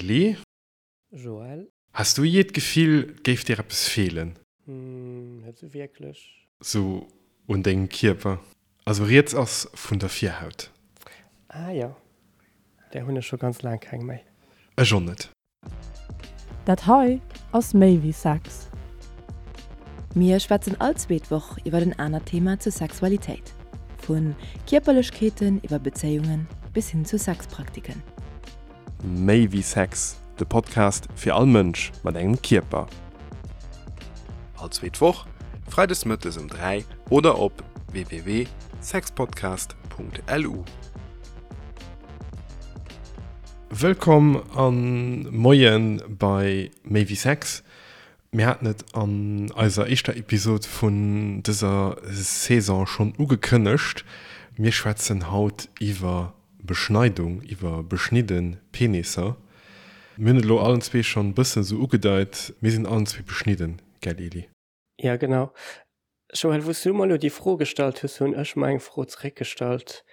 Eli. Joël. Has du jee d'Gefill, 't géif dir eppes feelen? Hm, net sou wierklech. Sou un dengem Kierper? Also rieds ass vun der Virhaut. Ah jo, där hunn ech scho ganz laang keng méi. Ech och net. Dat hei ass méi wéi Sex. Mir schwätzen all zweet Woch iwwer en anert Thema zur Sexualitéit. Vu Kierperlechkeeten iwwer Bezéiungen bis hin zu Sexpraktiken. Méi wéi Sex, de Podcast fir all Mënsch mat engem Kierper. All zweet Woch, freides mëttes um 3 oder op www.sexpodcast.lu. Wëllkomm an Moien bei Méi wéi Sex. Mir haten et an eiser éischter Episod vun dëser Saison schonn ugekënnegt, mir schwätzen haut iwwer Beschneidung, iwwer beschnidde Penisser. Mir hunn et elo allen zwee schonn bëssen esou ugedeit, mir sinn allen zwee beschnidden, gell Eli? Ja genau. Joël, wou s du mer elo déi Fro gestallt hues, hunn ech mer eng Fro zeréckgestallt.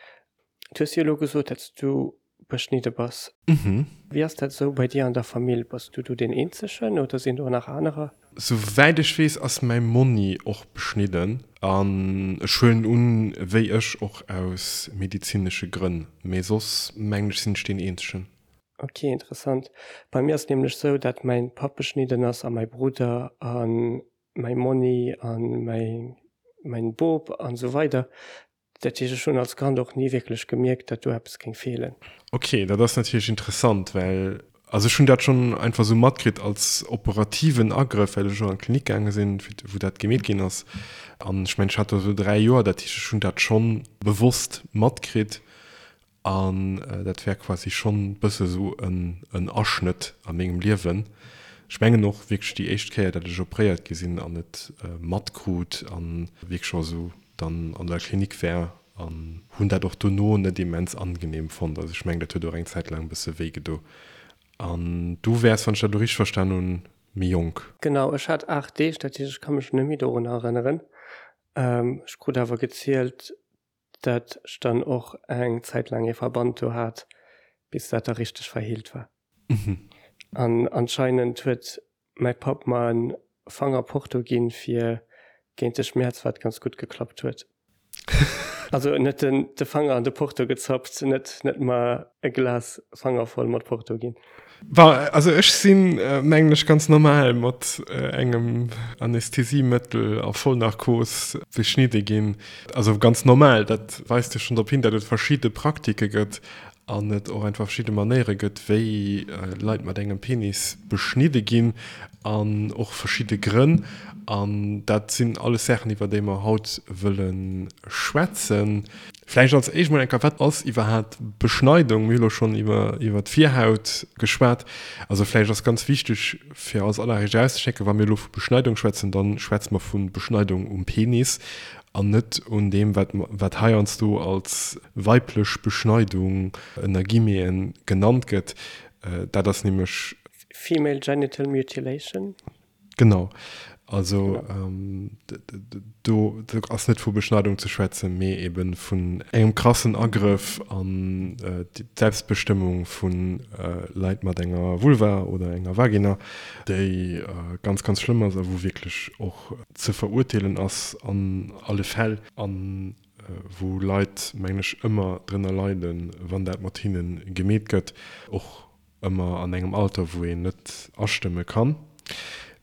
Du hues jo elo gesot, datt s du beschnidde bass. Wéi ass dat esou bei dir an der Famill? Bass du do deen Eenzegen oder sinn do nach anerer? Souwäit ech weess ass mäi Monni och beschnidden an ech huelen un, wéi ech, och aus medizinesche Grënn. Mee soss mengen ech sinn ech deen Eenzegen. Ok, interessant. Bei mir ass et nämlech sou, dat mäin Papp beschnidden ass a mäi Brudder a mäi Monni a mäi mäin Bop an esou weider. Dat heescht, ech hunn als Kand och ni wierklech gemierkt, dat do eppes géing feelen. Ok, dat ass natierlech interessant, well also ech hunn dat schonn einfach esou matkritt als operativen Agrëff, well ech och an d'Klinik gaange sinn, wou dat gemeet ginn ass. An ech mengen, ech hat do esou 3 Joer, dat heescht, ech hunn dat schonn bewosst matkritt. An dat wär quasi schonn bësse sou en Aschnëtt a mengem Liewen. Ech mengen och wierklech déi éischt Kéier, dat ech opréiert gi sinn an et matkrut a wierklech och esou dann an der Klinik war an hunn dat och dono net immens angenehm fonnt. Also ech mengen, dat huet och eng Zäit laang e bësse wéi gedo. An du wäers, wann ech dat elo richteg verstan hunn, méi jonk. Genau, ech hat 8 Deeg, dat heescht ech ka mech net méi dorunner erënneren. Ech krut awer gezielt, dat ech dann och eng Zäit laang ee Verband do hat, bis dat da richteg verheelt war. An anscheinend huet mäi Papp mer en Fanger Porto ginn fir géint de Schmäerz, wat ganz gutt geklappt huet. Also en huet den de Fanger an de Porto gezappt, net net mer e Glas Fanger voll mat Porto ginn. Bon, also ech sinn, mengen ech, ganz normal mat engem Anästhesiemëttel a Vollnarkos beschnidde ginn. Also ganz normal, dat weist jo schonn drop hin, datt et verschidde Praktike gëtt an et och einfach verschidde Manéiere gëtt, wéi Leit mat engem Penis beschnidde ginn an och verschidde Grënn. An dat sinn alles Saachen, iwwer déi mer haut wëlle schwätzen. Vläicht als éischt mol eng Kéier, Wat ass iwwerhaapt Beschneidung? Mir hu lo schonn iwwer iwwer d'Virhaut geschwat. Also vläicht ass ganz wichteg fir als alleréischt erauszeschécken, wa mir elo vu Beschneidung schwätzen, da schwätze mer vu Beschneidung um Penis an net un deem, wat wat heiansdo als weiblech Beschneidung ënner Guillemeten genannt gëtt. Dat ass nämlech. Female Genital Mutilation. Genau. Also do ass net vu Beschneidung ze schwätzen, mee ebe vun engem krassen Agrëff an d'Selbstbestëmmung vu Leit mat enger Vulva oder enger Vagina, déi ganz, ganz schlëmm ass a wou wierklech och ze verurteelen ass an alle Fäll a wou Leit, mengen ech, ëmmer drënner leiden, wann dat mat hinne gemeet gëtt, och ëmmer an engem Alter, wou een net astëmme kann.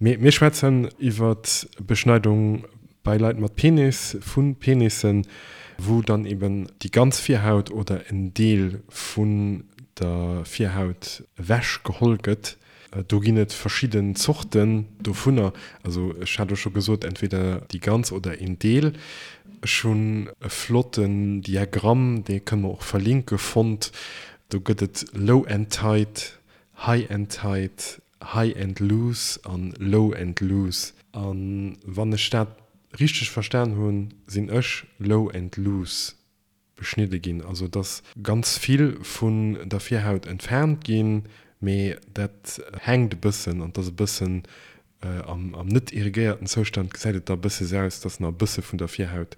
Mee mir schwätzen iwwer Beschneidung bei Leit mat Penis, vu Penissen, wou dann eben déi ganz Virhaut oder en Deel vun der Virhaut ewech geholl gëtt. Do ginn et verschidden Zorten dovunner. Also ech hat elo scho gesot, entweder déi ganz oder een Deel. Ech hunn e flotten Diagramm, dee kënne mer och verlinke, fonnt, Do gëtt et Low and Tight, High and Tight, High and Loose an Low and Loose. A wann ech dat richteg verstan hunn, sinn ech Low and Loose beschnidde ginn. Also et ass ganz vill vun der Virhaut entfernt ginn, mee dat hänkt e bëssen an et ass e bëssen Am net irrigéierten Zoustand gesäit et da bësse sou aus, dass nach e bësse vun der Virhaut,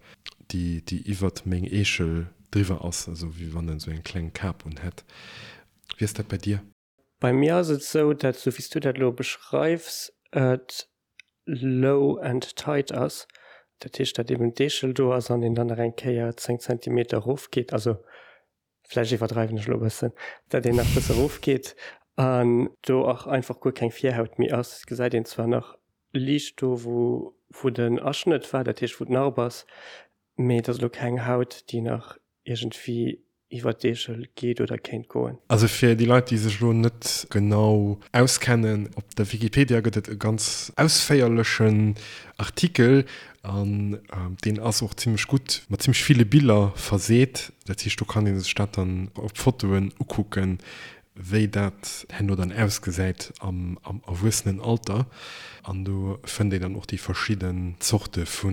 déi déi iwwert meng Eechel driwwer ass, also wéi wann en sou eng kleng Kap un hätt. Wéi ass dat bei dir? Bei mir ass et sou, dat sou wéi s du dat elo beschreifs, et low and tight ass. Dat heescht, dat eben d'Eechel do ass an een dann nach eng Kéier 10 Zentimeter erofgeet, also vläicht iwwerdreiwen ech elo e bëssen, dat een nach e bësse erofgeet an do och einfach guer keng Virhaut méi ass. Et gesäit een zwar nach liicht do wou wou den Aschnëtt war, dat heescht wou d'Narb ass, mee et ass elo keng Haut déi nach iergendwéi iwwer d'Eechel geet oder kéint goen. Also fir déi Leit déi sech elo net genau auskennen, op der Wikipedia gëtt et e ganz ausféierlechen Artikel an deen ass och zimmlech gutt mat zimmlech ville Biller verseet. Dat heescht do kann ee sech dat dann op Fotoen ukucken, wéi dat herno dann ausgesäit am Erwuessenenalter. An do fënnt een dann och déi verschidden Zorte vu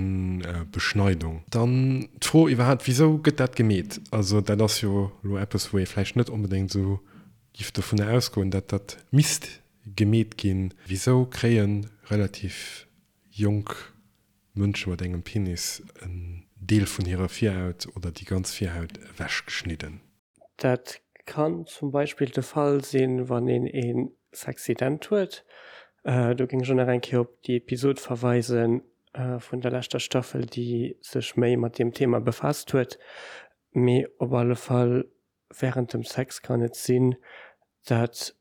Beschneidung. Dann d'Fro iwwerhaapt, Wisou gëtt dat gemeet? Also dat ass jo elo eppes, wou ee vläicht net onbedéngt esou giff dovunner ausgoen, dat dat misst gemeet ginn. Wisou kréie relativ jonk Mënsche mat engem Penis en Deel vun hirer Virhaut oder déi ganz Virhaut ewechgeschnidden? Dat kann zum Beispill de Fall sinn, wann een ee Sexident huet. Do géing ech och nach eng Kéier op déi Episod verweise vun der leschter Staffel, déi sech méi mat deem Thema befaasst huet. Mee op alle Fall, wärend dem Sex kann et sinn, dat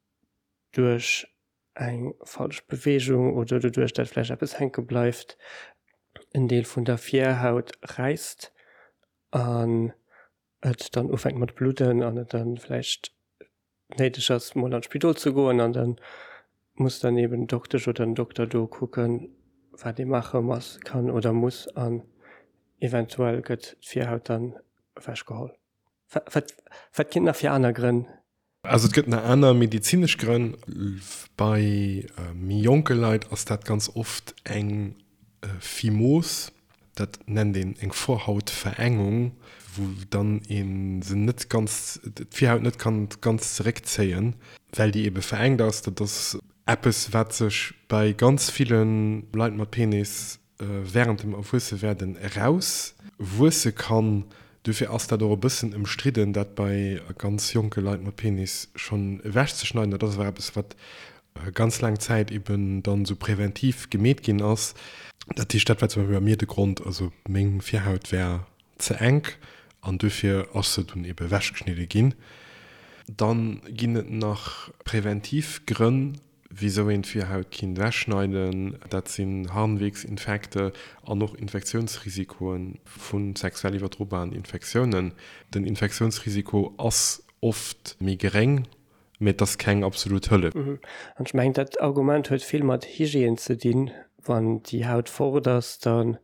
duerch eng falsch Beweegung oder doduerch, dat vläicht eppes hänke bleift, en Deel vun der Virhaut räisst an et dann ufänkt mat bludden an et dann vläicht néideg ass mol an d'Spidol ze goen an dann muss dann eben d'Doktesch oder den Dokter do kucken wat ee maache muss, kann oder muss an eventuell gëtt d'Virhaut dann ewech geholl. Wat wat ginn et nach fir aner Grënn? Also et gëtt nach aner medezinesch Grënn. Bei méi jonke Leit ass dat ganz oft eng Phimos, dat nennt een eng Vorhautverengung, wou dann ee se net ganz, d'Virhaut net kann ganz zeréckzéien, well déi ebe verengt ass. Dat ass eppes, wat sech bei ganz ville Leit mat Penis während dem Erwuessewerden eraus wuesse kann. Dofir ass dat och e bëssen ëmstridden, dat bei ganz jonke Leit mat Penis schonn ewechzeschneiden. Dat ass awer eppes, wat ganz laang Zäit eben dann esou präventiv gemeet ginn ass. Dat heescht, dat war zum Beispill bei mir de Grond, also meng Virhaut war ze enk an dofir ass se dunn eben ewechgeschnidde ginn. Dann ginn et nach präventiv Grënn, Wisou een d'Virhaut kinnt ewechschneiden, dat sinn Harnwegsinfekte an och Infektiounsrisikoe vu sexuell iwwerdrobaren Infektiounen. Den Infektiounsrisiko ass oft méi geréng, mee et ass keng absolut Hëllef. An ech mengen, dat Argument huet vill mat Hygiène ze dinn. Wann déi Haut fort ass, dann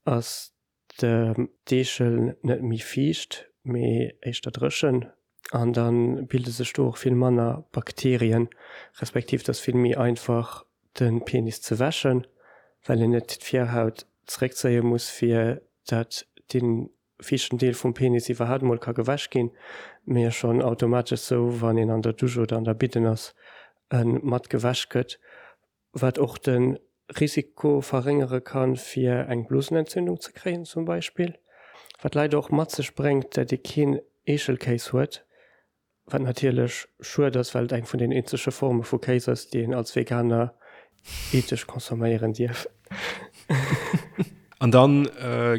ass d'Eechel net méi fiicht, mee éischter dréchen an da bilde sech do och vill manner Bakterien, respektiv et ass vill méi einfach de Penis ze wäschen, well een net d'Virhaut zeréckzéie muss fir dat dee fiichten Deel vum Penis iwwerhaapt emol ka gewäsch ginn, mee schonn automatesch sou wann een an der Dusch oder an der Bidden ass e mat gewäsch gëtt. Wat och de Risiko verréngere kann, fir eng Blosenentzündung ze kréien zum Beispill. Wat leider och mat sech bréngt, dat ee keen Eechelkéis huet, wat natierlech schued ass, well et eng vun den eenzege Forme vu Kéis ass, déi een als Veganer ethesch consomméieren dierf. An dann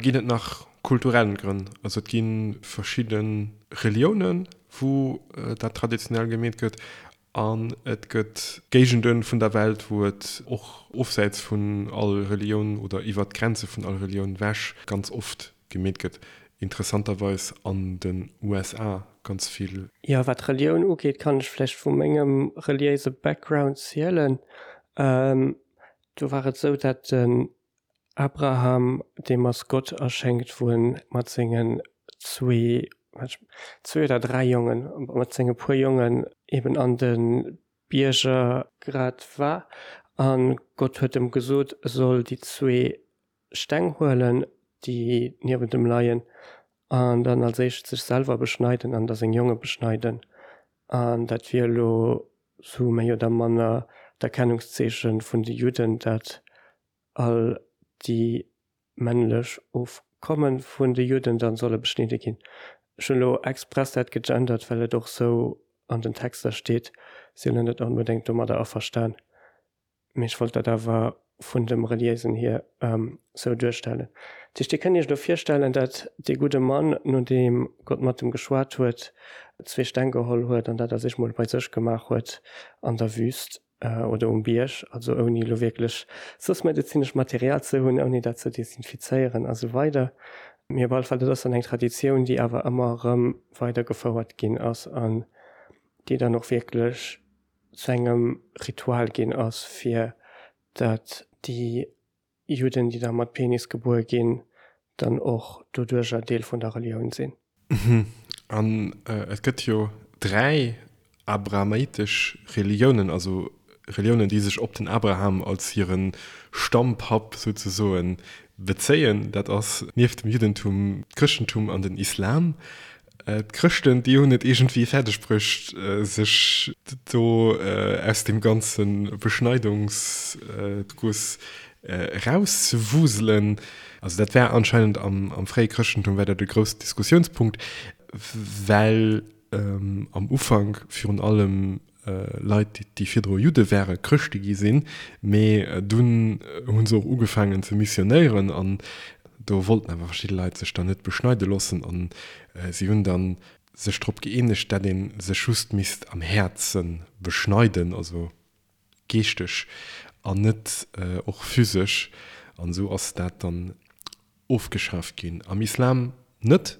ginn et nach kulturell Grënn. Also et gi verschidde Reliounen, wou dat traditionell gemeet gëtt. An et gëtt Géigende vun der Welt, wou et och ofsäits vun all Relioun oder iwwert d'Grenze vun all Relioun ewech ganz oft gemeet gëtt. Interessanterweis an den USA ganz vill. Jo, wat Relioun ugeet, kann ech vläicht vu mengem reliéise Background zielen. Do war et esou, dat den Abraham, deem ass Gott erschéngt, wou en mat sengen zwee, zwee oder dräi Jongen, mat senge puer Jongen eben an de Bierger grad war. A Gott huet em gesot, e soll déi zwee Steng huelen, déi niewent em leien, an dann als éischt sech selwer beschneiden an da seng Jonge beschneiden. An dat wier elo sou méi oder manner d'Erkennungszeeche vun de Judden, dat all déi männlech Ofkomme vun de Judden dann solle beschnidde ginn. Ech hunn elo express dat gegendert, well et och sou. an den Texter steet, sinn elo net onbedéngt domadder averstan. Mee ech wollt dat awer vun dem Reliéisen hier sou duerstellen. Dat heescht, Dir kënnt Iech elo virstellen, dat dee gudde Mann, nodeem Gott mat em geschwat huet, zwee Steng geholl huet an dat a sech mol bei sech gemaach huet an der Wüst oder um Bierg, also ouni elo wierklech soss medezinescht Material ze hunn, ouni dat ze desinfizéieren a sou weider. Mee op alle Fall, dat ass dann eng Traditioun, déi awer ëmmer erëm weidergefouert ginn ass an déi dann och wierklech zu engem Ritual ginn ass, fir dat déi Judden, déi da mat Penis gebuer ginn, dann och doduercher Deel vun der Relioun sinn. An et gëtt jo 3 abrahamitesch Reliounen, also Reliounen, déi sech op den Abraham als hire Stammpapp souzesoen bezéien. Dat ass nieft dem Juddentum d'Chrëschtentum an den Islam. D'Chrëschten, déi hunn et iergendwéi fäerdeg bruecht, sech do aus deem ganze Beschneidungsguss erauszewuselen. Also dat war anscheinend am fréie Chrëschtentum war dat e groussen Diskussiounspunkt, well am Ufank virun allem Leit, déi virdru Judde ware, Chrëschte gi sinn, mee dunn hu se och ugefaangen ze missionéieren an do wollten awer verschidde Leit sech dann net beschneide loossen an si hunn dann sech drop gëeenegt, dat ee sech just misst am Häerze beschneiden, also geeschteg an net och physesch an esou ass dat dann ofgeschaaft ginn. Am Islam net,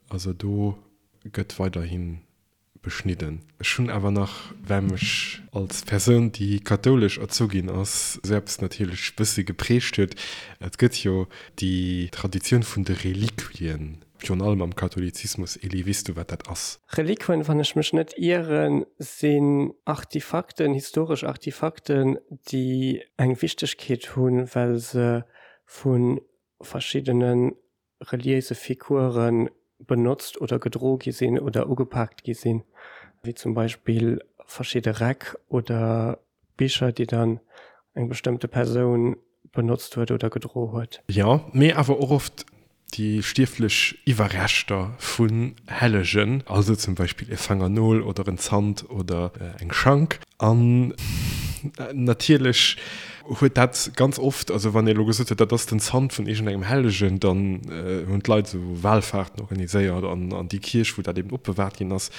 also do gëtt weiderhi beschnidden. Ech hunn awer nach, well mech als Persoun, déi kathoulesch erzu ginn ass, esou eppes natierlech bëssi geprägt huet, et gëtt jo déi Traditioun vun de Reliquien, virun allem am Katholizismus. Elie, weess du, wat dat ass? Reliquien, wann ech mech net ieren, sinn Artifakten, historesch Artifakten, déi eng Wichtegkeet hunn, well se vu verschiddene reliéise Figure benotzt oder gedro gi sinn oder ugepaakt gi sinn, wéi zum Beispill verschidde Räck oder Bicher, déi dann eng bestëmmte Persoun benotzt huet oder gedro huet. Jo, mee awer och oft déi stierflech Iwwerreschter vun Hellegen, also zum Beispill e Fangernol oder en Zant oder eng Schank. An natierlech huet dat ganz oft, also wann ee elo gesot huet, dat ass den Zant vun iergendengem Hellegen, dann hunn d'Leit esou Walfahrten organiséiert an an déi Kierch, wou dat eben opbewahrt ginn ass.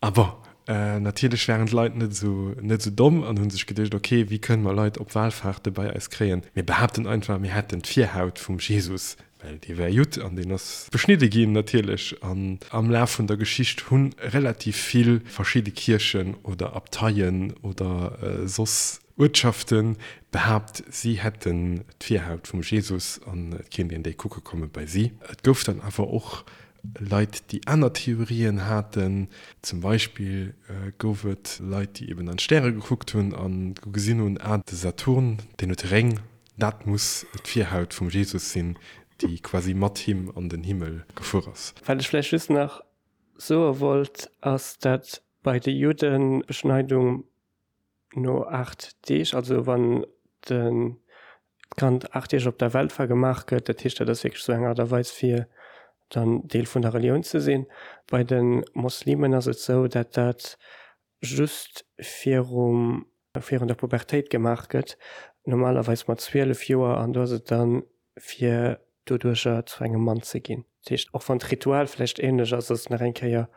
A bon, natierlech waren d'Leit net esou net esou domm an hu sech geduecht, ok, wéi kënne mer Leit op Walfahrte bei eis kréien? Mir behaapten einfach, mir hätten d'Virhaut vum Jesus. Well dee war Judd an deen ass beschnidde ginn natierlech. An am Laf vun der Geschicht hu relativ vill verschidde Kierchen oder Abteien oder soss Uertschafte behaapt, si hätten d'Virhaut vum Jesus an et kéint een déi kucke komme bei si. Et gouf dann awer och Leit, déi aner Theorien haten. Zum Beispill gouf et Leit, déi eben an d'Stäre gekuckt hunn a gesinn hunn, ah, de Saturn, deen huet Réng, Dat muss d'Virhaut vum Jesus sinn, déi quasi mat him an den Himmel gefuer ass. Wat ech vläicht just nach soe wollt, ass, dat bei de Judden d'Beschneidung no 8 Deeg, also wann d'Kand 8 Deeg op der Welt war, gemaach gëtt. Dat heescht, dat ass wierklech esou eng Aart a Weis, fir dann Deel vun der Relioun ze sinn. Bei de Moslemen ass et esou, dat dat just virum virun der Pubertéit gemaach gëtt, normalerweis mat 12 Joer, an do ass et dann fir doduercher zu engem Mann ze ginn. Dat heescht, och wann d'Ritual vläicht ähnlech ass, ass et nach eng Kéier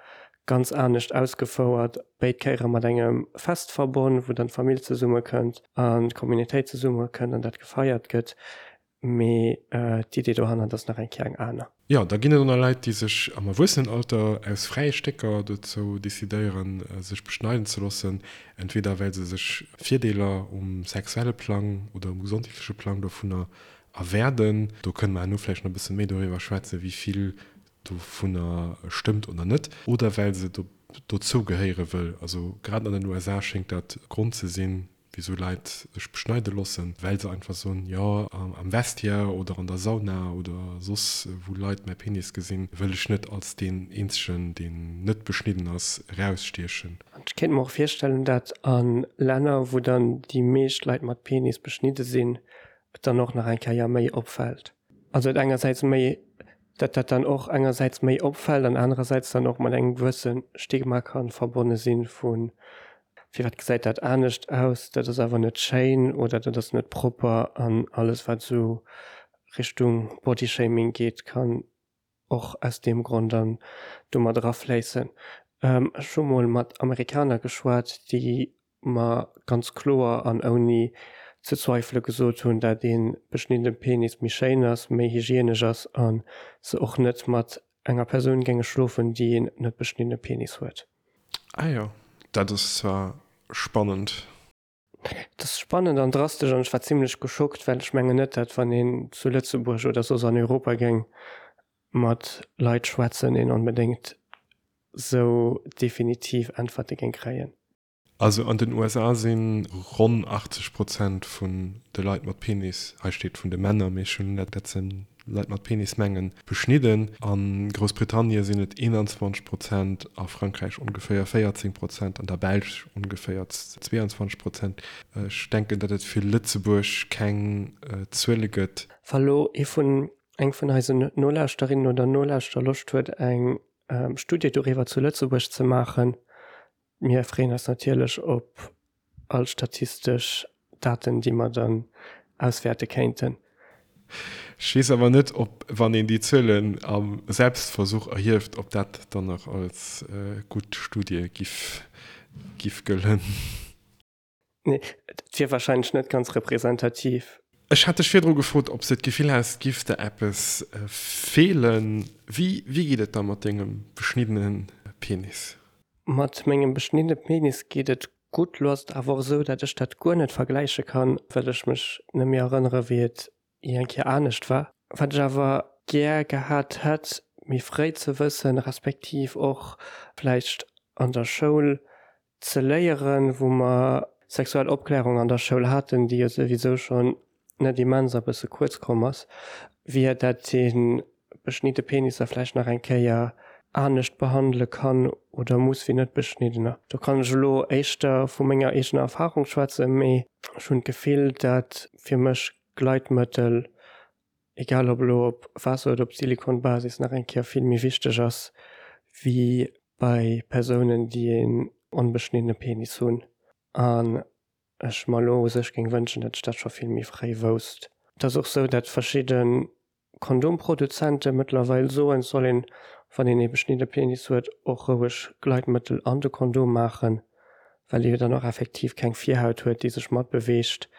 ganz anescht ausgefouert, béid Kéiere mat engem Fest verbonn, wou dann d'Famill zesummekënnt an d'Communautéit zesummekënnt an dat gefeiert gëtt. Mee d'Idee dohannert ass nach eng Kéier eng aner. Jo, da ginn et och nach Leit, déi sech am Erwuessenenalter aus fräie Stécker dozou decidéieren, sech beschneiden ze loossen, entweder well se sech Virdeeler um sexuelle Plang oder um gesondheetleche Plang dovunner erwäerden. Do kënne mer herno vläicht nach e bësse méi doriwwer schwätzen, wéi vill dovunner stëmmt oder net. Oder well se dozou gehéiere wëll. Also grad an den USA schéngt dat Grond ze sinn, Wisou Leit sech beschneide loossen, well se einfach soen, jo am Vestiaire oder an der Sauna oder soss wou Leit mäi Penis gesinn, wëll ech net als deen eenzegen, deen net beschnidden ass, erausstiechen. An ech kéint mer och virstellen, dat a Länner, wou dann déi meescht Leit mat Penis beschnidde sinn, et dann och nach eng Kéier méi opfält. Also et engersäits méi. Dat dat dann och engersäits méi opfält an anerersäits dann och mat engem gewësse Stigma ka verbonne sinn vu firwat gesäit dat anescht aus, dat ass awer net schéin oder dat ass net propper an alles wat esou Richtung Bodyshaming geet kann och aus deem Grond dann do mat erafléissen. Ech hu mol mat Amerikaner geschwat, déi mer ganz kloer an ouni ze zweifele gesot hunn, dat ee beschniddene Penis méi schéin ass, méi hygienesch ass a se och net mat enger Persoun géinge schlofen, déi een net beschniddene Penis huet. Ah jo, dat ass zwar spannend. Et ass spannend an drastesch an ech war zimlech geschockt, well ech mengen net, dat wann een zu Lëtzebuerg oder soss an Europa géing mat Leit schwätzen, een onbedéngt sou definitiv Äntwerte géing kréien. Also an den USA si ronn 80 Prozent vun de Leit mat Penis, hei steet vun de Männer, mee ech hunn dat se Leit mat Penis mengen, beschnidden. A Groussbritannie sinn et 21 Prozent, a Frankräich ongeféier 14 Prozent, an der Belsch ongeféier 22 Prozent. Ech denken, datt et fir Lëtzebuerg keng Zuele gëtt. Wa lo ee vun, eng vun eisen Nolauschterinnen oder Nolauschterer Loscht huet eng Studie doriwwer zu Lëtzebuerg ze maachen, Mir freeën eis natierlech op all statistesch Daten, déi mer dann auswäerte kéinten. Ech weess awer net, ob, wann een déi Zuelen am Selbstversuch erhieft, ob dat dann nach als gutt Studie giff gëllen. Nee, et wier wahrscheinlech net ganz representativ. Ech hat dech virdru gefrot, ob s de d'Gefill häss, et giff der eppes feelen. Wéi geet et da mat dengem beschniddene Penis? Mat mengem beschniddene Penis geet et gutt. Lo ass et awer och esou, dat ech dat guer net vergläiche kann, well ech mech net méi erënnere wéi et jee eng Kéier anescht war. Wat ech awer gär gehat hätt, méi fréi ze wëssen, respektiv och vläicht an der Schoul ze léieren, wou mer sexuell Opklärung an der Schoul haten, déi jo souwisou schonn net immens a bësse kuerz komm ass, wier dat ee beschnidde Penisser vläicht nach eng Kéier anescht behandele kann oder muss wéi net beschniddener. Do kann ech elo éischter vu menger eegener Erfahrung schwätzen, mee ech hunn d'Gefill, dat fir mech Gleitmëttel egal ob elo op Waasser oder op Silikonbasis, nach eng Kéier vill méi wichteg ass wéi bei Persounen, déi een onbeschniddene Penis hunn. An ech mer elo u sech géing wënschen, datt ech dat scho vill méi fréi wousst. Et ass och sou, datt verschidde Kondomproduzente mëttlerweil soen, et soll een, wann een ee beschnidde Penis huet, och roueg Gleitmëttel an de Kondom maachen, well ee jo dann och effektiv keng Virhaut huet, déi sech matbeweegt,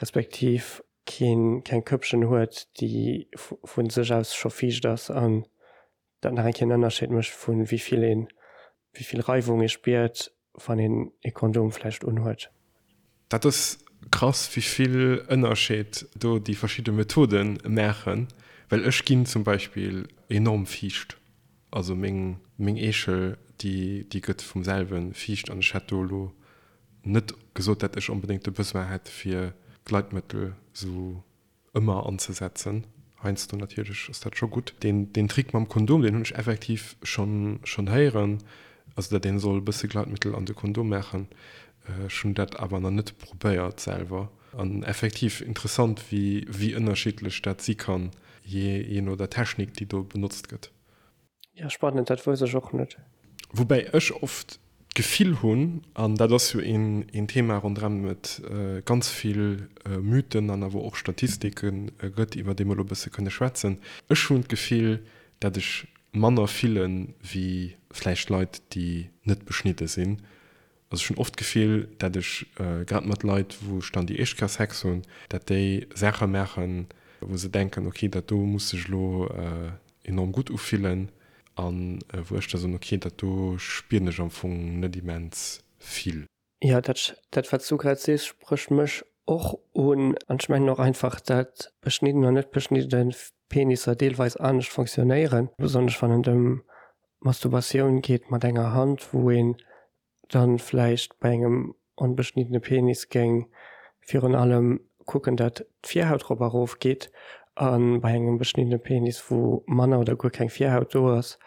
respektiv keen keng Këppchen huet, déi vu sech aus scho fiicht ass an dat nach eng Kéier en Ënnerscheed mécht vu wéi vill een, wéi vill Reiwung ee spiert, wann een ee Kondom vläicht unhuet. Dat ass krass, wéi vill Ënnerscheed do déi verschidde Methode maachen, well ech ginn zum Beispill enorm fiicht, also meng meng Eechel déi déi gëtt vum selwe fiicht an ech hätt do elo Net gesot dat ech onbedéngt de Besoin hätt fir Gleitmëttel sou ëmmer anzesetzen. Heiansdo natierlech ass dat scho gutt. Deen deen Trick mam Kondom deen hunn ech effektiv schonn schonn héieren, also dat een soll e bësse Gleitmëttel an de Kondom maachen. Ech hunn dat awer nach net probéiert selwer. An effektiv interessant wéi wéi ënnerschiddlech dat si kann jee jee no der Technik déi do benotzt gëtt. Ja, spannend, dat wousst ech och net. Woubäi ech oft d'Gefill hunn, an dat ass jo een Thema ronderëm et ganz vill Mythen an awer och Statistike gëtt, iwwer déi mer elo e bësse kënne schwätzen, ech hunn d'Gefill, dat ech manner fille wéi vläicht Leit, déi net beschnidde sinn. Also ech hunn oft d'Gefill, dat ech grad mat Leit, wou ech dann déi éischt Kéier Sex hunn, dat déi Saache maachen, wou se denken, ok, dat do muss sech elo enorm gutt ufillen, a wou ech da soen, ok, dat do spieren ech am Fong net immens vill. Jo, dat, dat wat s du grad sees, sprécht mech och un. An ech mengen och einfach, dat beschnidden an net beschnidde Penisser deelweis anescht fonctionnéieren, besonnesch wann et ëm Masturbatioun geet mat enger Hand, wou een dann vläicht bei engem onbeschniddene Penis géing virun allem kucken, dat d'Virhaut rop a rof geet, a bei engem beschniddene Penis, wou manner oder guer keng Virhaut do ass,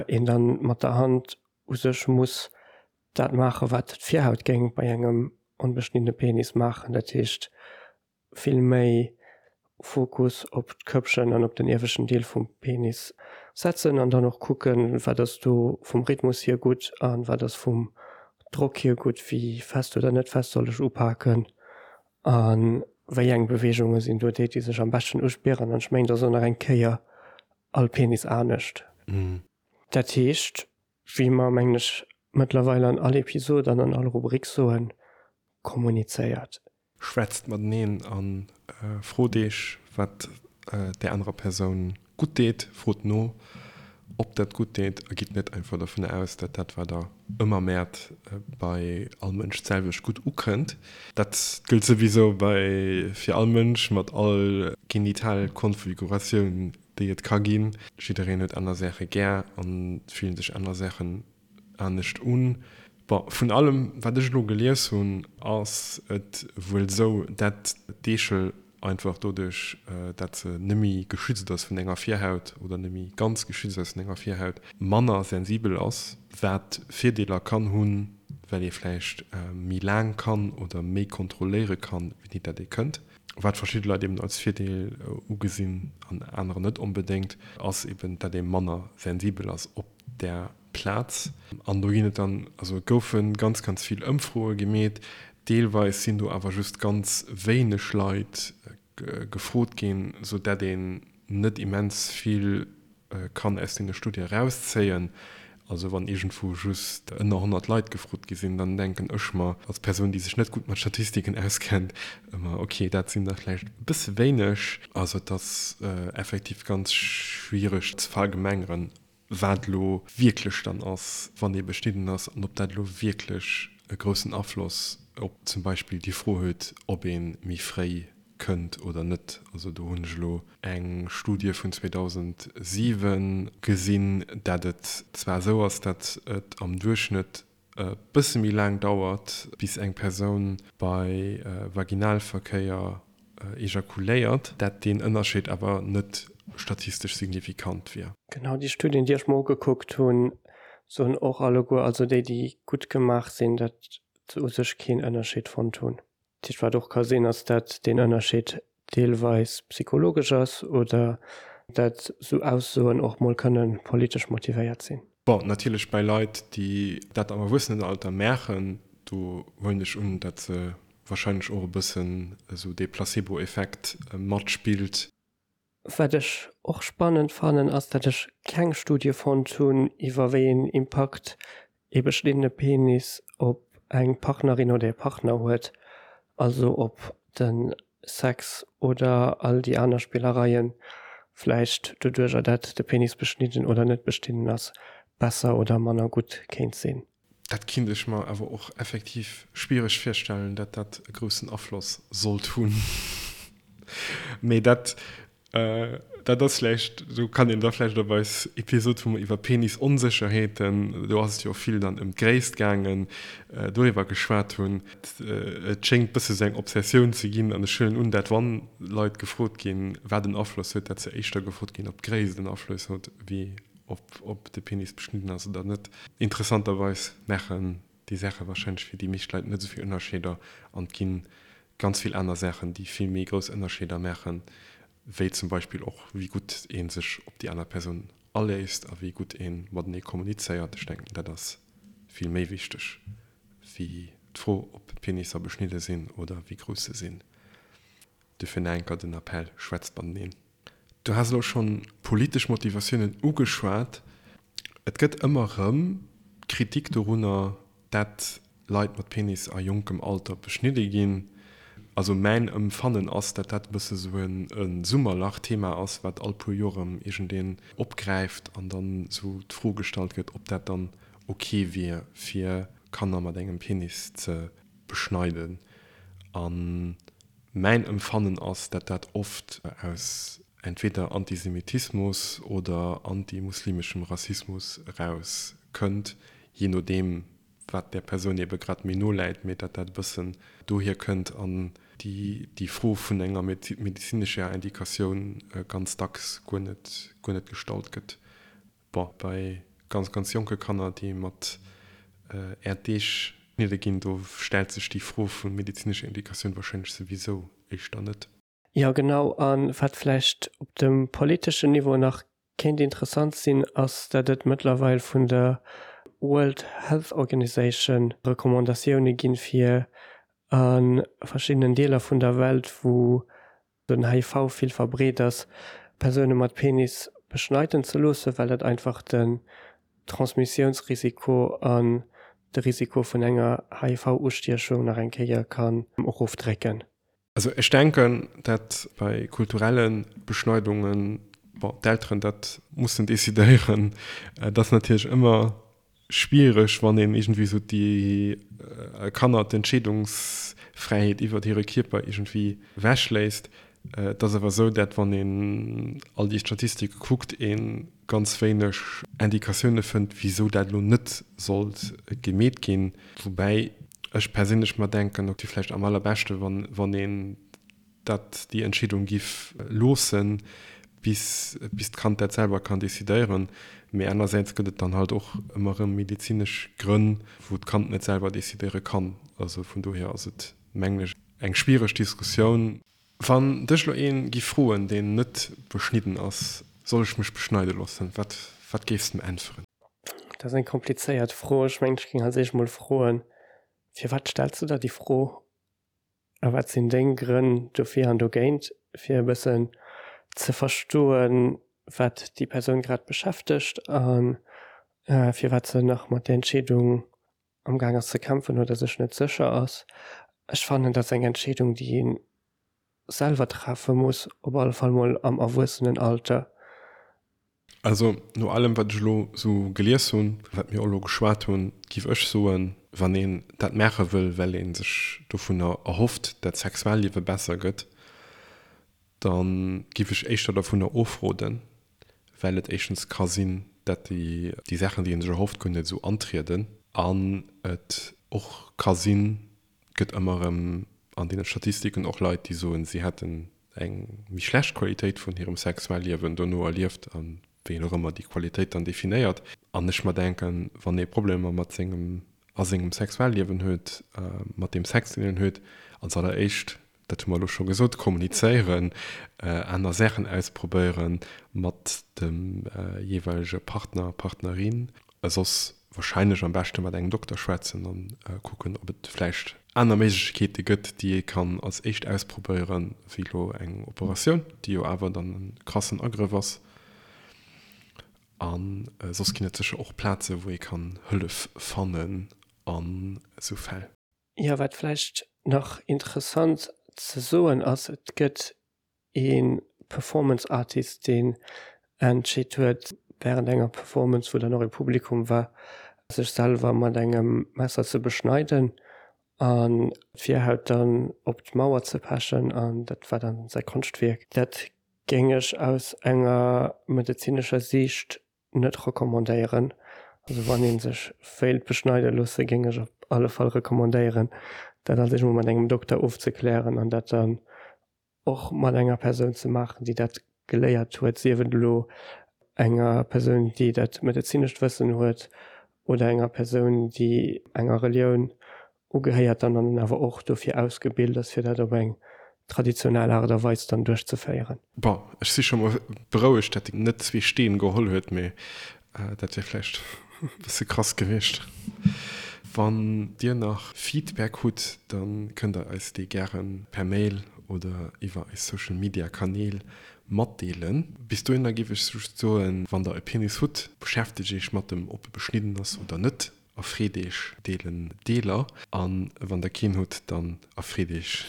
een dann mat der Hand u sech muss dat maachen, wat d'Virhaut géing bei engem onbeschniddene Penis maachen, dat heescht vill méi. Fokus op d'Köppchen an op den ieweschten Deel vum Penis setzen an dann och kucken, wat ass do vum Rhythmus hier gutt an wat ass vum Drock hier gutt, wéi fest oder net fest soll ech upaken a wéi eng Beweegunge sinn do déi, déi sech am beschten uspieren. An ech mengen, et ass och nach eng Kéier all Penis anescht. Dat heescht, wéi mer, mengen ech, mëttlerweil an all Episod an an all Rubrik soen, kommunizéiert. Schwätzt mateneen a frot iech, wat där anerer Persoun gutt deet. Frot no, ob dat gutt deet a gitt net einfach dovun aus, dat dat, wat der ëmmer mäert, bei all Mënsch d'selwecht gutt ukënnt. Dat gëllt souwisou bei fir all Mënsch mat all Genitalkonfiguratioun, déi et ka ginn. Jiddereen huet aner Saache gär a fillen sech aner Saachen anescht un. Bon, vun allem wat ech elo gelies hunn, ass et wuel esou, dat d'Eechel einfach doduerch, dat se nemmi geschützt ass vun enger Virhaut oder nemmi ganz geschützt ass vun enger Virhaut, manner sensibel ass, wat Virdeeler kann hunn, well ee vläicht méi laang kann oder méi kontrolléiere kann, wéini dat ee kënnt. Wat verschidde Leit eben als Virdeel ugesinn an anerer net onbedéngt, ass eben, dat ee manner sensibel ass op där Plaz. An do ginn et dann, also et goufe ganz, ganz vill Ëmfroe gemeet. Deelweis sinn do awer just ganz wéineg Leit gefrot ginn, sou dat een net immens vill kann aus deene Studie erauszéien. Also wann iergendwou just ënner 100 Leit gefrot gi sinn, dann denken ech mer als Persoun, déi sech net gutt mat Statistiken auskennt, ëmmer, okay, dat sinn der vläicht e bësse wéineg. Also et ass effektiv ganz schwiereg ze verallgemengeren, wat elo wierklech dann ass, wann ee beschnidden ass, an ob dat elo wierklech e groussen Afloss op zum Beispill déi Fro huet, ob ee méi fréi kënnt oder net. Also do hunn ech elo eng Studie vun 2007 gesinn, dat et zwar esou ass, dat et am Duerchschnëtt e bësse méi laang dauert, bis eng Persoun bei Vaginalverkéier ejakuléiert, dat deen Ënnerscheed awer net statistesch signifikant wier. Genau, déi Studien, déi ech mer ugekuckt hunn, soen och alleguer, also déi, déi gutt gemaach sinn, datt se u sech keen Ënnerscheed fonnt hunn. Dat heescht, wat och ka sinn, ass, datt deen Ënnerscheed deelweis psychologesch ass oder datt esou Aussoen och mol kënne politesch motivéiert sinn. Bon, natierlech bei Leit, déi dat am Erwuessenenalter maachen, do huelen ech un, datt se warscheinlech och e bëssen esou dee Placebo-Effekt matspillt. Wat ech och spannend fannen, ass dat ech keng Studie fonnt hunn iwwer wéi een Impakt ee beschniddene Penis op eng Partnerin oder ee Partner huet, also ob de Sex oder all déi aner Spillereien vläicht doduercher dat de Penis beschnidden oder net beschnidden ass, besser oder manner gutt kéint sinn. Dat kinnt ech mer awer och effektiv schwiereg virstellen, dat dat e groussen Afloss sollt hunn. Mee dat, dat ass vläicht, do kann een da vläicht op eis Episod, wou mer iwwer Penisonsécherheeten, do ass et jo och vill dann ëm d'Gréisst gaangen, doriwwer geschwat hunn. Et schéngt bësse sou eng Obsessioun ze ginn an ech huelen un, dat wann Leit gefrot ginn, wat en Afloss huet, dat se éischter gefrot ginn, ob d'Gréisst en Afloss huet, wéi Ob de Penis beschnidden ass oder net. Interessanterweis maachen déi Saache warscheinlech fir déi meescht Leit net esou vill Ënnerscheeder an et gi ganz vill aner Saachen, déi vill méi grouss Ënnerscheeder maachen, wéi zum Beispill och wéi gutt ee sech op déi aner Persoun aléisst a wéi gutt ee matenee kommunizéiert. Ech denken, dat ass vill méi wichteg wéi d'Fro, ob Penisser beschnidde sinn oder wéi grouss se sinn. Dofir nach eng Kéier den Appell, Schwätzt mateneen. Du has elo schonn politesch Motivatiounen ugeschwat. Et gëtt ëmmer erëm Kritik dorunner, dat Leit mat Penis a jonkem Alter beschnidde ginn. Also mäin Ëmfannen ass, dat dat e bësse sou e Summerlach-Thema ass, wat all puer Joer erëm iergendeen opgräift an dann sou d'Fro gestallt gëtt, ob dat dann ok wier, fir Kanner mat engem Penis ze beschneiden. An Mäin Emfannen ass, dat dat oft aus entweder Antisemitismus oder antimuslimeschem Rassismus eraus kënnt, jee nodeem wat där Persoun ebe grad méi no läit, mee dat dat e bëssen dohier kënnt an déi Fro vun enger medezinescher Indikatioun ganz dacks guer net guer net gestallt gëtt. Bon, bei ganz, ganz jonke Kanner, déi mat Äerddeeg geschnidde ginn, do stellt sech déi Fro vu medezinescher Indikatioun warscheinlech souwisou éischter net. Jo genau, a wat vläicht op dem politeschen Niveau nach kéint interessant sinn, ass dat et mëttlerweil vun der World Health Organization Recommandatioune ginn, fir a verschiddenen Deeler vun der Welt, wou den HIV vill verbreet ass, Persoune mat Penis beschneiden ze loossen, well dat einfach den Transmissiounsrisiko an de Risiko vun enger HIV-Ustiechung nach eng Kéier kann erofdrécken. Also ech denken, dat bei kulturelle Beschneidungen, bon, d'Elteren dat mussen decidéieren. Et ass natierlech ëmmer schwiereg, wann een iergendwéi esou déi Kanner d'Entscheedungsfräiheet iwwert hire Kierper iergendwéi ewechléisst. Et ass awer esou, dat wann een all déi Statistike kuckt, ee ganz wéineg Indikatioune fënnt, wisou dat elo net sollt gemeet ginn. Woubäi ech perséinlech mer denken, et wier vläicht am allerbeschte wann een dat, déi Entscheedung giff loossen, bis bis d'Kand dat selwer kann decidéieren. Mee anersäits gëtt et dann halt och ëmmer erëm medezinesch Grënn, wou d'Kand net selwer decidéiere kann. Also vun dohier ass et, mengen ech, eng schwiereg Diskussioun. Wann dech lo een giff froen, deen net beschnidden ass, Soll ech mech beschneide loossen? Wat wat géifs de em äntweren? Dat ass eng komplizéiert Fro. Ech mengen, ech géing als éischt mol froen, Firwat stells de der déi Fro? A wat sinn deng Grënn dofir an dogéint? Fir e bëssen ze verstoen, wat déi Persoun grad beschäftegt a firwat se nach mat där Entscheedung am Gaang ass ze kämpfen oder sech net sécher ass. Ech fannen, dat ass eng Entscheedung, déi ee selwer treffe muss, op alle Fall mol am Erwuessenenalter. Also no allem wat ech elo sou gelies hunn, wat mir och elo geschwat hunn, giff ech soen, wann een dat maache wëll, well ee sech dovunner erhofft, dat d'Sexualliewe besser gëtt, da giff ech éischter dovunner ofroden, well et éischtens ka sinn, dat déi Saachen, déi ee sech erhofft, guer net esou antrieden an et och ka sinn, et gëtt ëmmer erëm an deene Statistiken och Leit, déi soen, si hätten eng méi schlecht Qualitéit vun hirem Sexualliewen dono erlieft a wéi een och ëmmer déi Qualitéit dann definéiert. An ech mer denken, wann ee Problemer mat sengem a sengem Sexualliewen huet, mat deem Sex, deen een huet, als alleréischt dat hu mer elo scho gesot, kommunizéieren, aner Saachen ausprobéieren mat dem jeeweilege Partner, Partnerin, soss wahrscheinlech am beschte mat engem Dokter schwätzen a kucken, ob et vläicht aner Méiglechkeete gëtt, déi ee kann als éischt ausprobéieren, wéi elo eng Operatioun, déi jo awer dann e krassen Agrëff ass. A soss ginn et sécher och Plaze wou ee kann Hëllef fannen an esou Fäll. Jo, wat vläicht nach interessant ze soen ass, et gëtt ee Performance Artist, deen entscheet huet, wärend enger Performance, wou dann och ee Publikum war, sech selwer mat engem Messer ze beschneiden an d'Virhaut dann op d'Mauer ze pechen an dat war dann säi Konschtwierk. Dat géing ech aus enger medezinescher Siicht net recommandéieren. Also wann een sech wéilt beschneide loosse géing ech op alle Fall recommandéieren dat als éischt mol mat engem Dokter ofzeklären an dat dann och mat enger Persoun ze maachen déi dat geléiert huet, sief et elo enger Persoun déi dat medezinescht Wëssen huet oder enger Persoun déi enger Relioun ugehéiert dann an awer och dofir ausgebilt ass, fir dat op eng traditionell Aart a Weis dann duerchzeféieren. Bon, ech si scho mol berouegt, dat en net zwee Steen geholl huet, mee dat wier vläicht e bësse krass gewiescht. Wann dir nach Feedback hutt, da kënnt der eis dee gäre per Mail oder iwwer eis Social Media Kanäl matdeelen. Bis dohinner géif ech just soen, wann der e Penis hutt, beschäftegt iech mat em, ob e beschnidden ass oder net. Erfreet eech deelen Deeler an wann der keen hutt, dann erfreet eech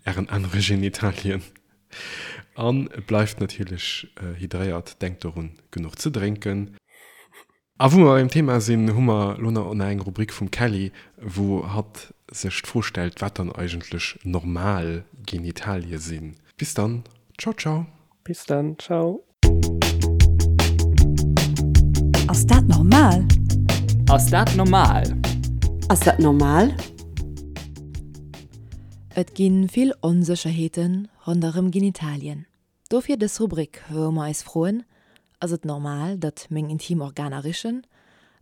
ären anere Genitalien an bleift natierlech hydréiert, denkt dorun genuch ze drénken. A wou mer beim Thema sinn, hu mer lo nach eng Rubrik vum Kelly, wou hatt sech d'Fro stellt, wat dann eigentlech normal Genitalie sinn. Bis dann, ciao ciao. Bis dann, ciao. Ass dat normal? Ass dat normal? Ass dat normal? Et gi vill Onsécherheete ronderëm Genitalien. Dofir dës Rubrik, wou mer eis froen, Ass et normal, datt meng intim Organer richen?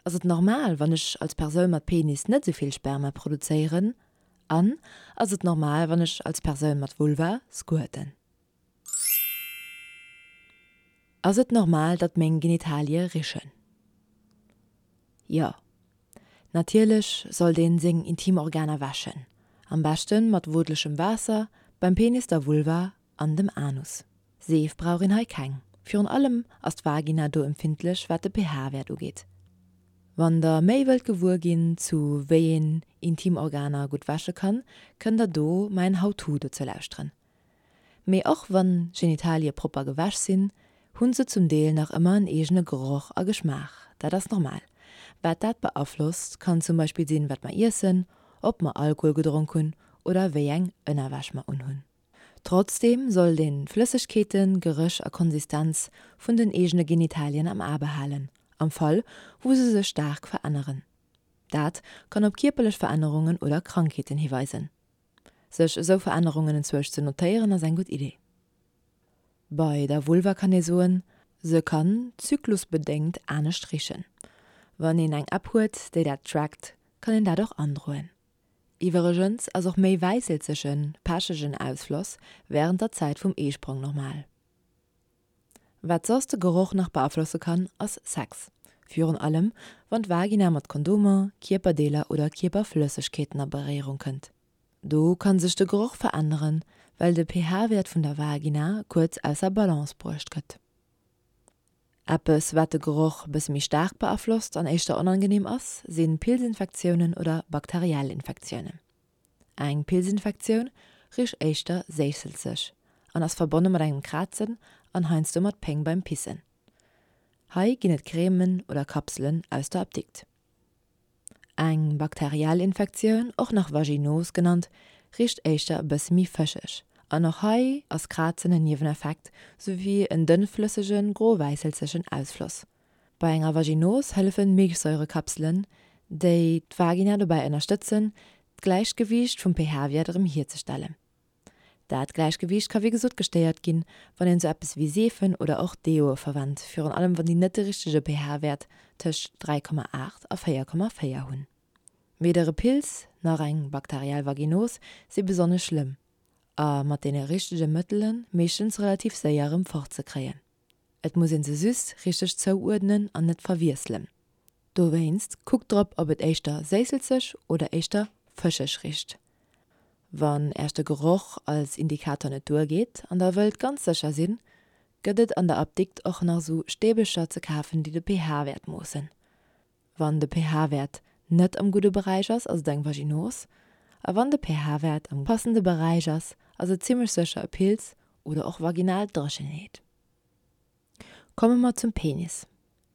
Ass et normal, wann ech als Persoun mat Penis net esou vill Sperma produzéieren? An ass et normal, wann ech als Persoun mat Vulva squirten? Ass et normal, datt meng Genitalie richen? Jo. Natierlech sollt een seng Intimorganer wäschen, am beschten mat wootlechem Waasser, beim Penis, der Vulva an dem Anus. Seef brauch een hei keng, virun allem ass d'Vagina do empfindlech wat de pH-Wäert ugeet. Wann der méi wëllt gewuer ginn zu wéi een Intimorganer gutt wäsche kann, kënnt der do mäin How-To dozou lauschteren. Mee och wann Genitalie propper gewäsch sinn, hunn se zum Deel nach ëmmer en eegene Geroch a Geschmaach. Dat ass normal. Wat dat beaflosst, kann zum Beispill sinn, wat mer iessen, ob mer Alkohol gedronk hunn oder wéi eng Ënnerwäsch mer unhunn. Trotzdeem sollt een d'Flëssegkeeten, Geréch a Konsistenz vun den eegene Genitalien am A behalen, am Fall wou se sech staark veränneren. Dat kann op kierperlech Verännerungen oder Krankheeten hiweisen. Sech esou Verännerungen enzwousch ze notéieren ass eng gutt Idee. Bei der Vulva kann ee soen, se kann zyklusbedéngt anescht richen. Wann een eng App huet, déi dat trackt, kann een dat och androen. Iwweregens ass och méi wäisselzegen, pechegen Ausfloss wärend der Zäit vum Eesprong normal. Wat soss de Geroch nach beaflosse kann, ass Sex. Virun allem, wann d'Vagina mat Kondomer, Kierperdeeler oder Kierperflëssegkeeten a Beréierung kënnt. Do kann sech de Geroch veränneren, well de pH-Wäert vun der Vagina kuerz ausser Balance bruecht gëtt. Eppes, wat de Geroch bësse méi staark beaflosst an éischter onangeneem ass, si Pilzinfektiounen oder bakteriell Infektiounen. Eng Pilzinfektioun richt éischter séisselzeg an ass verbonne mat engem Krazen an heiansdo mat Péng beim Pissen. Hei ginn et Cremen oder Kapselen aus der Apdikt. Eng bakteriell Infektioun, och nach Vaginos genannt, richt éischter e bësse méi fëscheg an och hei ass Krazen en Nieweneffekt souwéi en dënnflëssege gro-wäisselzegen Ausfloss. Bei enger Vaginos hëllefen Milchsäurekapselen, déi d'Vagina dobäi ënnerstëtzen, d'Gläichgewiicht vum pH-Wäert erëm hierzestellen. Dat Gläichgewiicht ka wéi gesot gestéiert ginn, wann een sou eppes wéi Seefen oder och Deoe verwennt, virun allem wann déi net de richtege pH-Wäert tëscht 3,8 a 4,4 hunn. Weder e Pilz nach eng bakteriell Vaginos si besonnesch schlëmm a mat deene richtege Mëttele meeschtens relativ séier erëm fortzekréien. Et muss een se just richteg zouuerdnen an net verwiesselen. Dowéinst kuckt drop ob et éischter séisselzeg oder éischter fëscheg richt. Wann äerch de Geroch als Indikator net duergeet an der wëllt ganz sécher sinn, gëtt et an der Apdikt och nach sou Stäbelcher ze kafen déi de pH-Wäert moossen. Wann de pH-Wäert net am gudde Beräich ass, ass et eng Vaginos, a wann de pH-Wäert am passende Beräich ass, ass et zimmlech sécher e Pilz oder och vaginal Dréchenheet. Komme mer zum Penis.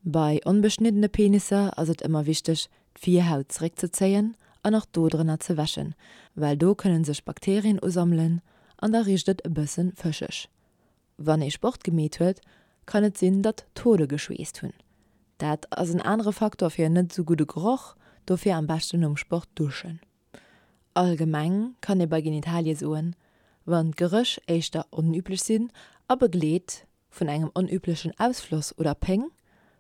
Bei onbeschniddene Penisser ass et ëmmer wichteg, d'Virhaut zeréckzezéien an och do drënner ze wäschen, well do kënne sech Bakterien usammelen an da richt et e bësse fëscheg. Wann ee Sport gemeet huet, kann et sinn, datt d'Hode geschweesst hunn. Dat ass en anere Faktor fir en net esou gudde Geroch, dofir am beschten nom Sport duschen. Allgemeng kann ee bei Genitalie soen, wann d'Geréch éischter onüblech sinn a begleet vun engem onüblechen Ausfloss oder Péng,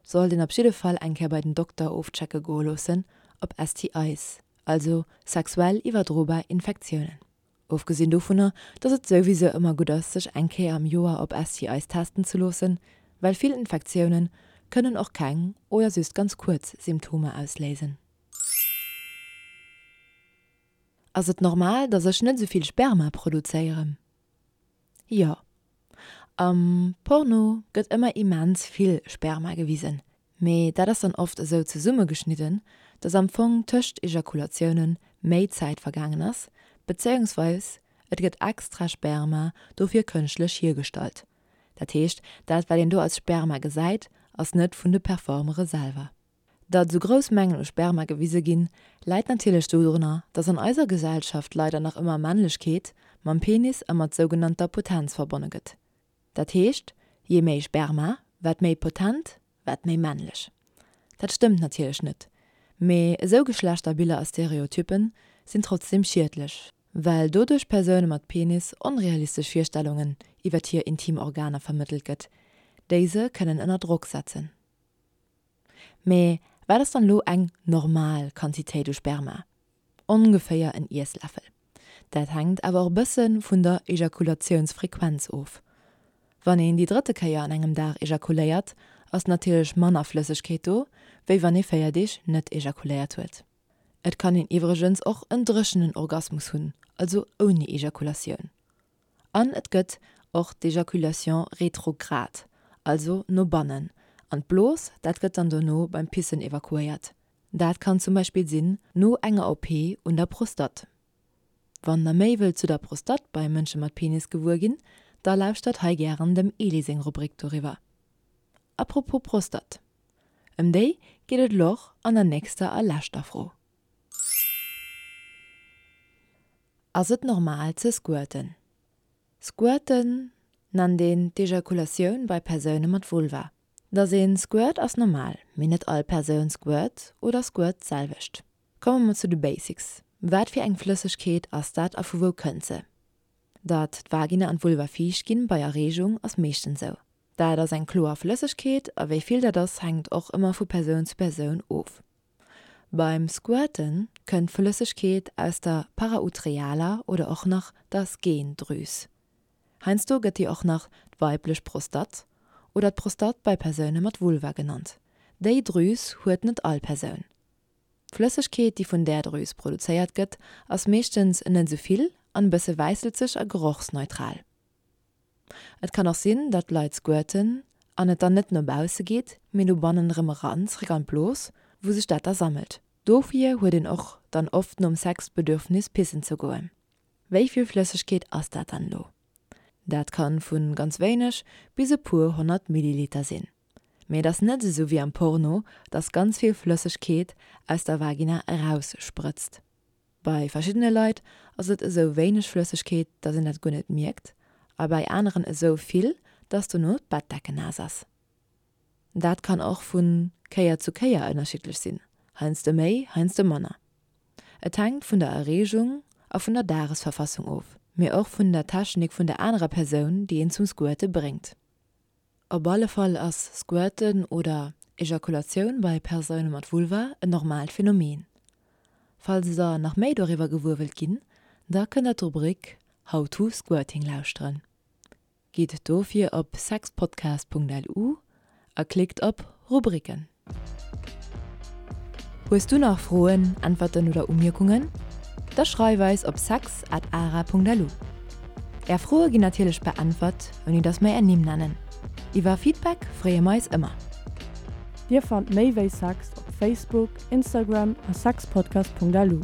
sollt een op jidde Fall eng Kéier bei den Dokter ofchecke goe loossen op STIs, also sexuell iwwerdrobar Infektiounen. Ofgesinn dovunner, dass et souwisou ëmmer gutt ass, sech eng Kéier am Joer op STIs testen ze loossen, well vill Infektioune kënnen och keng oder just ganz kuerz Symptomer ausléisen. Ass et normal, dass ech net esou vill Sperma produzéieren? Jo. Am Porno gëtt ëmmer immens vill Sperma gewisen, mee dat ass dann oft esou zesummegeschnidden, dass am Fong tëscht Ejakulatioune méi Zäit vergaangen ass, bezéiungsweis et gëtt extra Sperma dofir kënschtlech hiergestallt. Dat heescht, dat wat een do als Sperma gesäit, ass net vun de Performere selwer. Datt esou grouss Mengen u Sperma gewise ginn, läit natierlech dodrunner, datt an eiser Gesellschaft leider nach ëmmer Männlechkeet mam Penis a mat sougenannter Potenz verbonne gëtt. Dat heescht, jee méi Sperma, wat méi potent, wat méi männlech. Dat stëmmt natierlech net, mee esou Geschlechterbiller a Stereotyppen sinn trotzdeem schiedlech, well doduerch Persoune mat Penis onrealistesch Virstellungen iwwert hir intim Organer vermëttelt gëtt, déi se kënnen ënner Drock setzen. Mee wat ass dann elo eng normal Quantitéit u Sperma? Ongeféier en Iessläffel. Dat hänkt awer och e bësse vun der Ejakulatiounsfrequenz of. Wann een déi drëtte Kéier an engem Dag ejakuléiert, ass natierlech manner Flëssegkeet do, wéi wann ee 4 Deeg net ejakuléiert huet. Et kann een iwwregens och en dréchenen Orgasmus hunn, also ouni Ejakulatioun. An et gëtt och d'Ejaculation rétrograde, also no bannen an d'Blos, dat gëtt dann dono beim Pissen evakuéiert. Dat kann zum Beispill sinn no enger OP un der Prostatt. Wann der méi wëllt zu der Prostatt bei Mënsche mat Penis gewuer ginn, da lauschtert hei gären dem Eli seng Rubrik doriwwer. Apropos Prostatt, ëm déi geet et elo och an der nächster a leschter Fro. Ass et normal ze squirten? Squirten nennt een d'Ejakulatioun bei Persoune mat Vulva. Dass een squirt ass normal, mee net all Persoun squirt oder squirt d'selwecht. Komme mer zu de Basics, Wat fir eng Flëssegkeet ass dat a vu wou kënnt se? Datt d'Vagina an d'Vulva fiicht ginn bei Erreegung ass meeschtens sou. Dat ass eng kloer Flëssegkeet a wéi vill dat ass hänkt och ëmmer vu Persoun zu Persoun of. Beim Squirten kënnt d'Flëssegkeet aus der parautrealer oder och nach der Skene-Drüs. Heiansdo gëtt déi och nach d'weiblech Prostatt oder d'Prostatt bei Persoune mat Vulva genannt. Déi Drüs huet net all Persoun. D'Flëssegkeet, déi vun där Drüs produzéiert gëtt, ass meeschtens net esou vill an e bësse wäisselzeg a gerochsneutral. Et kann och sinn, datt Leit squirten an et dann net no bausse geet, mee no bannen erëm eran, zréck an d'Blos, wou sech dat da sammelt. Dofir huet een och dann oft nom Sex d'Bedürfnis pissen ze goen. Wéi vill Flëssegkeet ass dat dann elo? Dat kann vu ganz wéineg bis e puer 100 Milliliter sinn. Mee et ass net esou wéi am Porno, datt ganz vill Flëssegkeet aus der Vagina eraus sprëtzt. Bei verschiddene Leit ass et esou wéineg Flëssegkeet, dass een dat guer net mierkt, a bei aneren esou vill, dass dono d'Bettdecken naass ass. Dat kann och vu Kéier zu Kéier ënnerschiddlech sinn, heiansdo méi, heiansdo manner. Et hänkt vun der Erreegung a vun der Dagesverfassung of, mee och vun der Technik vun der anerer Persoun, déi een zum Squirte bréngt. Op alle Fall ass Squirten oder Ejakulatioun bei Persoune mat Vulva en normaalt Phänomen. Falls der nach méi doriwwer gewuer wëllt ginn, da kënnt der d'Rubrik How to Squirting lauschteren. Gitt dofir op sexpodcast.lu a klickt op Rubriken. Hues du nach Froen, Äntwerten oder Umierkungen? Da schreif eis op sex at ara.lu. Är Froe ginn natierlech beäntwert, ouni dass mer är Nimm nennen. Iwwer Feedback freeë mer eis ëmmer. Dir fannt méi wéi Sex op Facebook, Instagram a sexpodcast.lu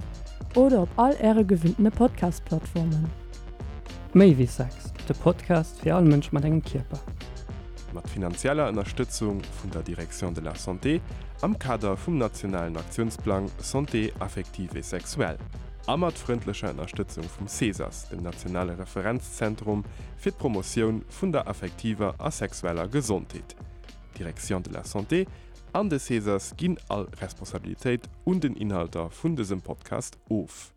oder op all äre gewinntene Podcast-Plattformen. Méi wéi Sex, de Podcast fir all Mënsch mat engem Kierper. Mat finanzieller Ënnerstëtzung vun der Direction de la Santé am Kader vum nationalen Aktiounsplang Santé affective et sexuelle a mat frëndlecher Ënnerstëtzung vum CESAS, dem nationale Referenzzentrum fir d'Promotioun vun der affektiver a sexueller Gesondheet. D'Direction de la Santé an de CESAS ginn all Responsabilitéit un den Inhalter vun dësem Podcast of.